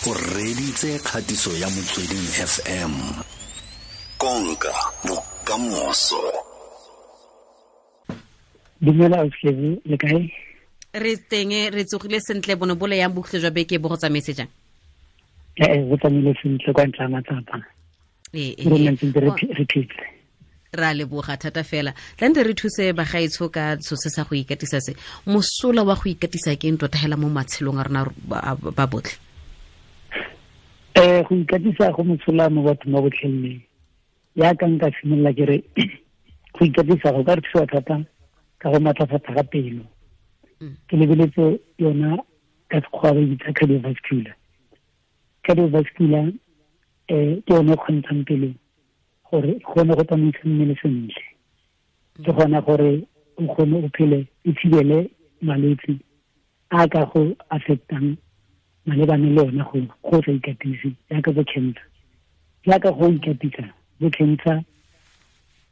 O reditse kgatiso ya Motsweding FM. Konka bokamoso. Dumela Auslebo, le kae? Re teng, re tsogile sentle. Bone bole yang bokhutlo jwa beke bo go tsamaetse jang? Ee, go tsamaile sentle kwa ntle ga matsapa. Re ntse re phetse. Ra leboga thata fela. Tlante re thuse bagaetsho ka so se sa go ikatisa se. Mosola wa go ikatisa ke eng tota hela mo matshelong a rona ba botlhe? Go ikatisa go mosola mo bathong ba botlhe. Ya ka nka simolola ke re go ikatisa go ka re thusa thata ka go matlafatsa ga pelo. Ke lebeletse yona ka sekgowa ba e bitsa cardiovascular. Cardiovascular ke yone e kgontshang pelo gore kgone go tsamaisa mmele sentle. Ke gona gore o kgone o phele, o thibele malwetse a ka go affectang malebane le yona go sa ikatise, jaaka bo cancer. Jaaka go ikatisa, bo cancer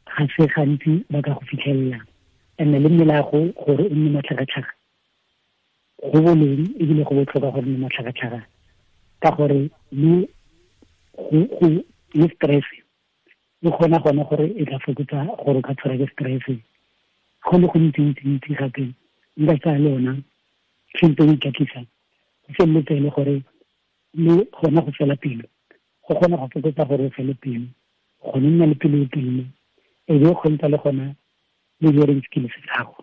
ga se gantsi ba ka go fitlhelela. And-e le mmele wa go gore o nne matlhagatlhaga, go boleng ebile go botlhokwa gore nne matlhagatlhaga, ka gore le go le stress e kgona gona gore e tla fokotsa gore o ka tshwara ke stress. Go le gontsi-ntsi-ntsi gape nka tsaya le yona tshwantse o ikatisa, go feleletse e le gore le gona go fela pelo, go kgona go fokotsa gore o fele pelo, go nna le pelo e telele, e be o kgontsha le gona le hearing skills tsa gago,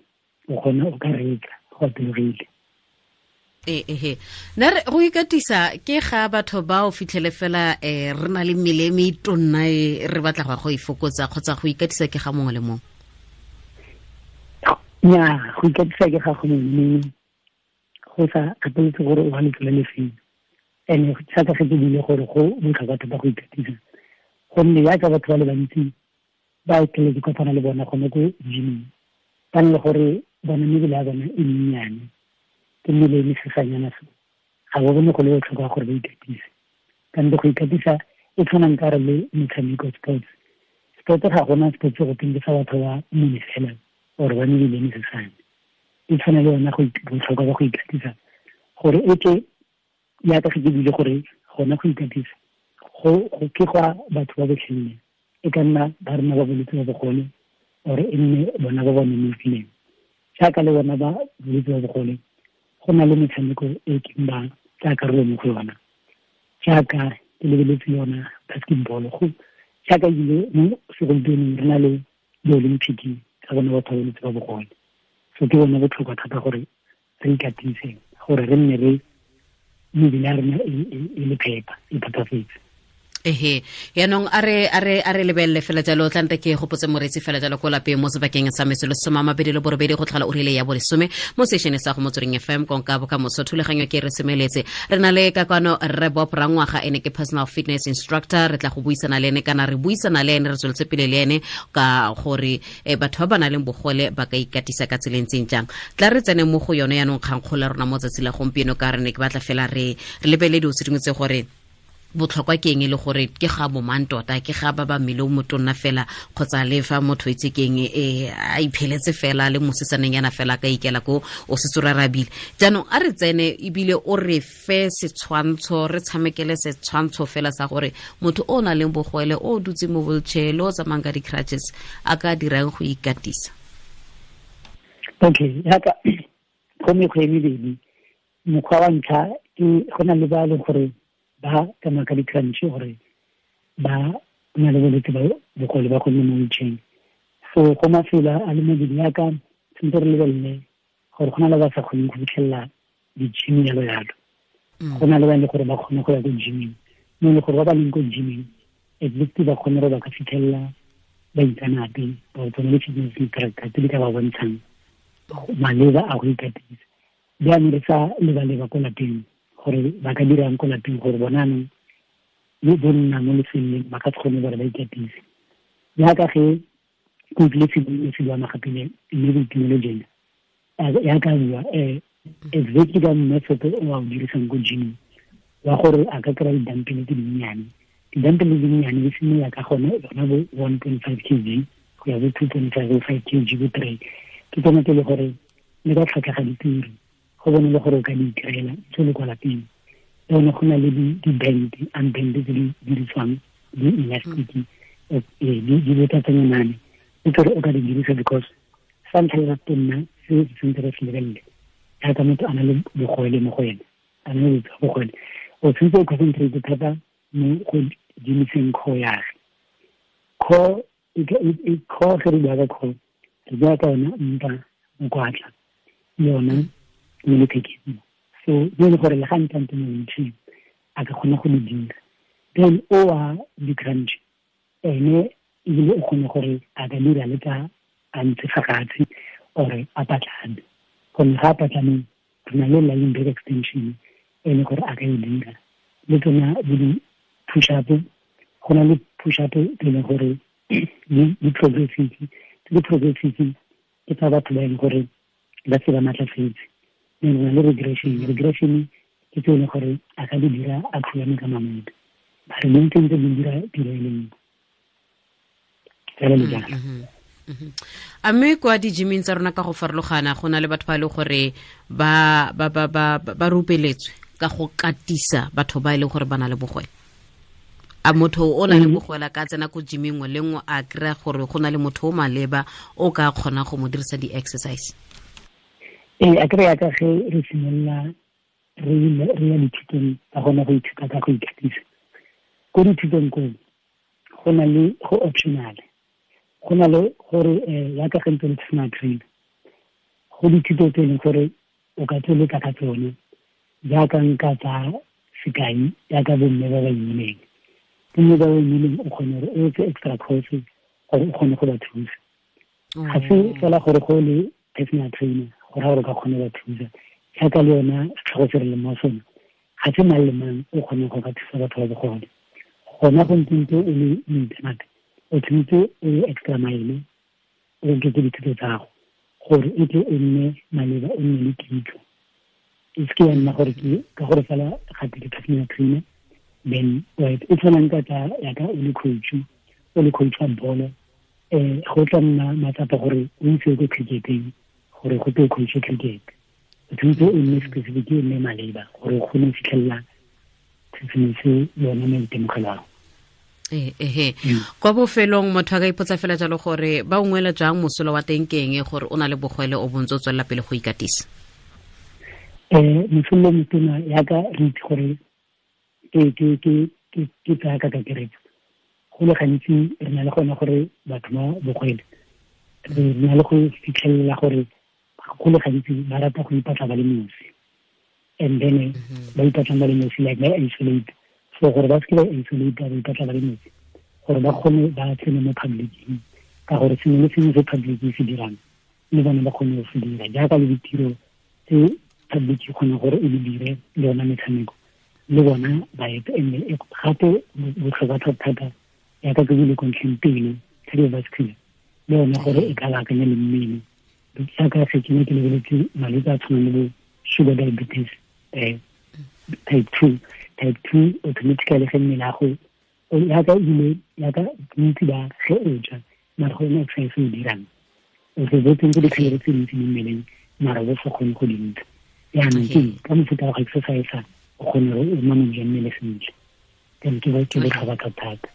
o kgona o ka reetsa go atologile. Ehe, nna re go ikatisa ke ga batho ba o fitlhele fela re na le mmele e metonna e re batla go go ifokotsa, kgotsa go ikatisa ke ga mongwe le mongwe? Nnyaa, go ikatisa ke ga go mongwe le mongwe, go sa kgathaletse gore o ga letsela le feng. And-e jaaka ge ke buile gore go botlhokwa thata go ikatisa, gonne jaaka batho ba le bantsi ba tlele ke kopana le bona gone ko gyming, ba ne le gore bona mebele ya bona e mennyane, ke mmele e mesesanyana so, ga ba bone go le botlhokwa gore ba ikatise. Kante go ikatisa e tshwanang ka re le metshameko, sports. Sport ga gona sports go teng ke sa batho ba mmele fela or ba mebele e mesesane. E tshwana le yona botlhokwa ba go ikatisa, gore e ke jaaka ge ke buile gore gona go ikatisa go ke gwa batho ba botlhe, e ka nna ba rena ba bolwetse ba bogole or e nne bona ba ba nonofileng. Jaaka le bona ba bolwetse ba bogole, go na le metshameko e keng ba tsaya karolo mo go yona, jaaka ke lebeletse yona basketball, go jaaka ebile mo segompienong re na le di-Olympic tsa bona batho ba bolwetse ba bogole. So ke bona botlhokwa thata gore re ikatise, gore re nne re mebele ya rena e le phepa, e phepafetse. Ehe, yaanong a re lebelele fela jalo. Tlante ke gopotse moreetsi fela jalo ko lapeng mo sebakeng sa metsotso 28 go tlhola ura ya bolesome mo sešene sa go Motsweding FM, konka bokamoso. Thulaganyo ke re semeletse, re na le ka kwano Rre Bob Rangwaga, ene ke personal fitness instructor. Re tla go buisana le ene, kana re buisana le ene, re tsweletse pele le ene ka gore batho ba ba nang le bogole ba ka ikatisa ka tsela e ntseng jang. Tla re tsene mo go yone yaanong kgangkgolo ya rona mo tsatsi la gompieno, ka re ne ke batla fela re lebelele dilo tse dingwe tse gore botlhokwa ke eng, e le gore ke ga bo mang tota, ke ga ba ba mmele o motonna fela, kgotsa le fa motho itse ke eng, a ipheletse fela le mosetsaneng yana fela ka ikela ko o setse o rarabile. Jaanong a re tsene ebile o re fe setshwantsho, re tshamekele setshwantsho fela sa gore motho o nang le bogole, o dutse mo wheelchair, le o tsamayang ka di-crutches, a ka dirang go ikatisa. Okay, jaaka go mekgwa e mebedi. Mokgwa wa ntlha ke go na le ba e leng gore ba tsamaya ka di-crutch, gore ba na le bolwetse ba bogole ba go nne mo wheelchair. So go mafelo a le mabedi, jaaka tshwanetse re lebelele gore go na le ba sa kgoneng go fitlhelela di-gym jalo jalo. Go na le ba e leng gore ba kgone go ya ko gyming, mo e leng gore ba ba leng ko gyming at least ba kgone gore ba ka fitlhelela baitseanape ba tsone le fitness instructor tse di ka ba bontshang maleba a go ikatisa. Jaanong re sa leba-leba ko lapeng gore ba ka dirang ko lapeng, gore bona anong le bo nna mo lefelong ba ka se kgone gore ba ikatise. Jaaka ge ke utlwile se bua magapile mme Boitumelo jena ya ka bua exactly ka method o a o dirisang ko gyming, wa gore a ka kry-a di-dumbbell tse dinnyane. Di-dumbbell tse dinnyane di simolola ka gone yona bo 1.5 kg go ya bo 2.5, bo 5 kg, bo 3. Ke tsone tse e le gore le ka tlhwatlhwa ga dituri, go bone le gore o ka di itirela tse le kwa lapeng. Le go na le di-band, unband tse di dirisiwang, di-elastic, di botsatsanyane le tsore o ka di dirisa, because sa ntlha ya tonna se se tshwanetse re se lebelele jaaka motho a na le bogole mo go ene, a na le bogole, o tshwanetse o concentrate thata mo go dimiseng core yage. Core core, ge re bua ka core, re bua ka yona mpa, mokwatla le yona mo lethekeng. So mo e le gore le ga ntante mo wheelchair a ka kgona go di dira. Then o wa di-crunch ene ebile o kgone gore a ka dira le ka a ntse fa fatshe or a patlame, gonne ga a patlameng re na le lying back extension e le gore a ka e dira. Le tsona bo di-push up, go na le push up tse e leng gore di progressive. Tse di progressive ke tsa batho ba e leng gore ba se ba matlafetse. Then re na le regression. Regression ke tse e leng gore a ka di dira a khulame ka mamoto, ba re di ntse di dira tiro e le nngwe fela le jalo. A mme kwa di-gyming tsa rona ka go farologana go na le batho ba e leng gore ba ba ba ba ba rupeletswe ka go katisa batho ba e leng gore ba na le bogole? A motho o na le bogole ka tsena ko gyming nngwe le nngwe a kry-a gore go na le motho o maleba o ka kgona go mo dirisa di-exercise? Ee, a kry-a ka ge re simolola re ya dithutong tsa gona go ithuta ka go ikatisa ko dithutong koo, go na le go optional, go na le gore yaka ge ntse le personal trainer, go dithuto tse e leng gore o ka tsweletsa ka tsone. Jaaka nka tsa sekai, jaaka bomme ba ba imileng, bomme ba ba imileng, o kgone gore o etse extra course gore o kgone go ba thusa. Ga se fela gore go le personal trainer go raya gore o ka kgone ba thusa. Jaaka le yona setlhogo se re leng mo sone, ga se mang le mang o kgoneng go ka thusa batho ba bogole. Gona go ntse o le moitseanape, o tshwanetse o ye extra mile, o oketse dithuto tsa gago gore e tle o nne maleba, o nne le kitso. E seke ya nna gore ke ka gore fela gape ke personal trainer then right. E tshwanang ka tsa yaka o le coach, o le coach wa bolo, go tla nna matsapa gore o itse ko cricketeng gore go tlo coach cricket. O tshwanetse o nne specific, o nne maleba gore o kgone go fitlhelela sengwe se yone maitemogelo ao. Ehe, kwa bofelong motho a ka ipotsa fela jalo gore ba ungwela jang, mosola wa teng ke eng gore o na le bogwele o bontse o tswelela pele go ikatisa? Mosola motona, yaka re itse gore ke tsaya ka kakaretso, go le gantsi re na le gona gore batho ba bogwele re na le go fitlhelela gore go le gantsi ba rata go ipatla ba le nosi, and then ba ipatlang ba le nosi, like ba isolate. So gore ba seke ba isolate, ba ipatla ba le nosi gore ba kgone ba tsene mo publicing, ka gore sengwe le sengwe se public se dirang le bone ba kgone go se dira, jaaka le ditiro tse public e kgona gore e di dire, le yona metshameko le bona ba ete. And gape botlhokwa thata, yaka ke bile kontlheng pele, cardiovascular le yone gore e ka baakanya le mmele, jaaka se ke ne ke lebeletse malwetse a tshwanang le bo sugar diabetes type 2. Type 2 automatically ge mmele ya go yaka ebile yaka bontsi ba ge o ja mara go ena exercise o dirang, o se bo tsentse di-calorie tse dintsi mo mmeleng mara bo sa kgone go dintsha. Jaanong ke ka mofuta wa go exercise o kgone gore o manage mmele sentle. Then ke botlhokwa thata.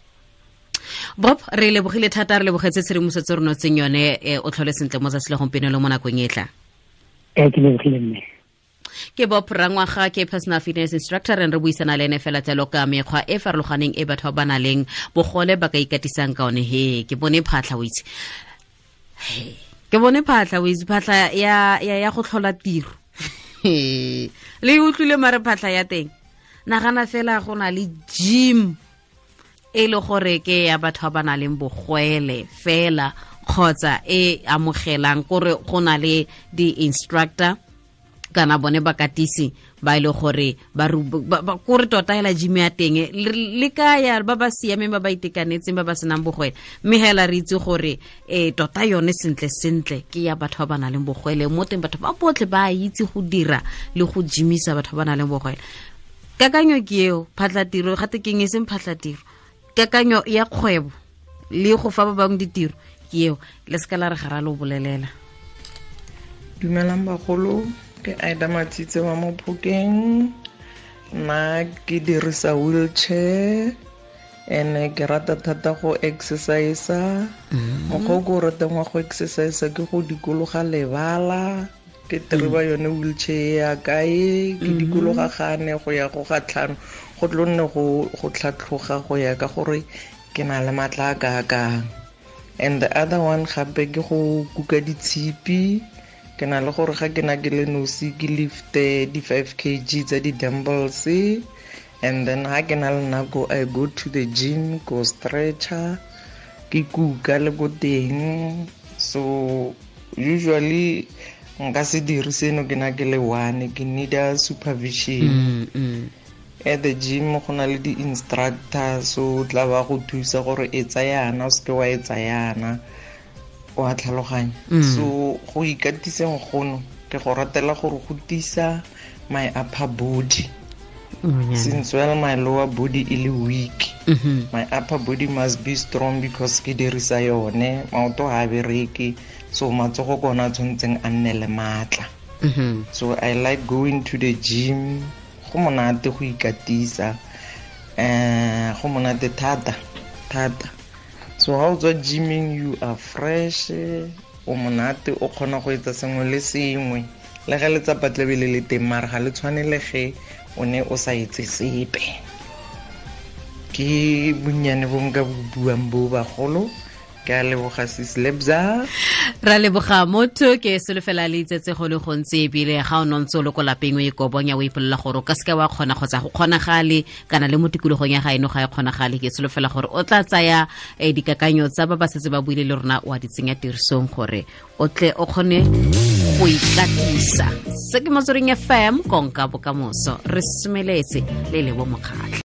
Bob, re lebogile thata, re lebogetse tshedimosetso re notseng yone. O tlhole sentle mo tsatsi la gompieno le mo nakong e tlang. Ee, ke lebogile mme. Ke Bob Rangwaga, ke personal fitness instructor, re buisana le ene fela jalo ka mekgwa e farologaneng e batho ba ba nang le bogole ba ka ikatisang ka one. He, ke bone phatlha, o itse, ke bone phatlha, o itse, phatlha ya go tlhola tiro le utlwile, mare phatlha ya teng, nagana fela go na le gym e le gore ke ya batho ba ba nang le bogwele fela, kgotsa e amogelang kore go na le di-instructor kana bone bakatisi ba ile gore ba kore tota hela gym ya teng le ka ya ba ba siameng, ba ba itekanetseng, ba ba senang bogwele. Mme hela re itse gore tota yone sentle sentle ke ya batho ba ba nang le bogwele. Mo teng batho ba botlhe ba itse go dira le go gymisa batho ba ba nang le bogwele. Kakanyo ke eo, phatlatiro gate keng, e seng phatlatiro, kakanyo ya kgwebo le go fa ba bangwe ditiro ke eo. Le seka la re ga ra lo bolelela. Dumelang bagolo, ke Aida Matsitse wa mo Phokeng. Nna ke dirisa wheelchair ene ke rata thata go exercise. Mokgwa o ke o ratang wa go exercise ke go dikologa lebala, ke tereba yone wheelchair ya kae, ke dikologa gane go ya go ga tlhano, go tlo nne go tlhatlhoga go ya ka gore ke na le matla a kaakang. And the other one gape ke go kuka ditshipi. Ke na le gore ga ke na ke le nosi ke lifte di 5 kg tsa di-dumbbells, and then ha ke na le nako I go to the gym, go stretcher, ke kuka le ko teng. So usually nka se dire seno ke na ke le one, ke need a supervision. At the gym go na le di-instructor, so tla ba go thusa gore e tsayana o seke wa e tsayana, wa tlhaloganya. So go ikatiseng gono ke go ratela gore go tisa my upper body. Since well my lower body e le weak, my upper body must be strong because ke dirisa yone, maoto ga a bereke, so matsogo ke ona a tshwanetseng a nne le maatla. So I like going to the gym. Go monate go ikatisa, go monate thata thata. So ha o tswa gymming you are fresh, o monate, o kgona go etsa sengwe le sengwe. Le ge letsapa tlabe le le teng, mara ga le tshwane le ge o ne o sa etse sepe. Ke bonnyane bo nka bo buang bo bagolo. Ke a leboga sis Lebza. Ra leboga motho, ke solofela le itsetse go le gontsi, ebile ga o nontse o le ko lapeng o ikobonya o ipolela gore o ka seke wa kgona kgotsa go kgonagale, kana le mo tikologong ya gaeno ga e kgonagale. Ke solofela gore o tla tsaya dikakanyo tsa ba ba setse ba buile le rona wa di tsenya tirisong gore o tle o kgone go ikatisa. Se ke Motsweding FM, konka bokamoso. Re semeletse le Lebo Mokgatlho.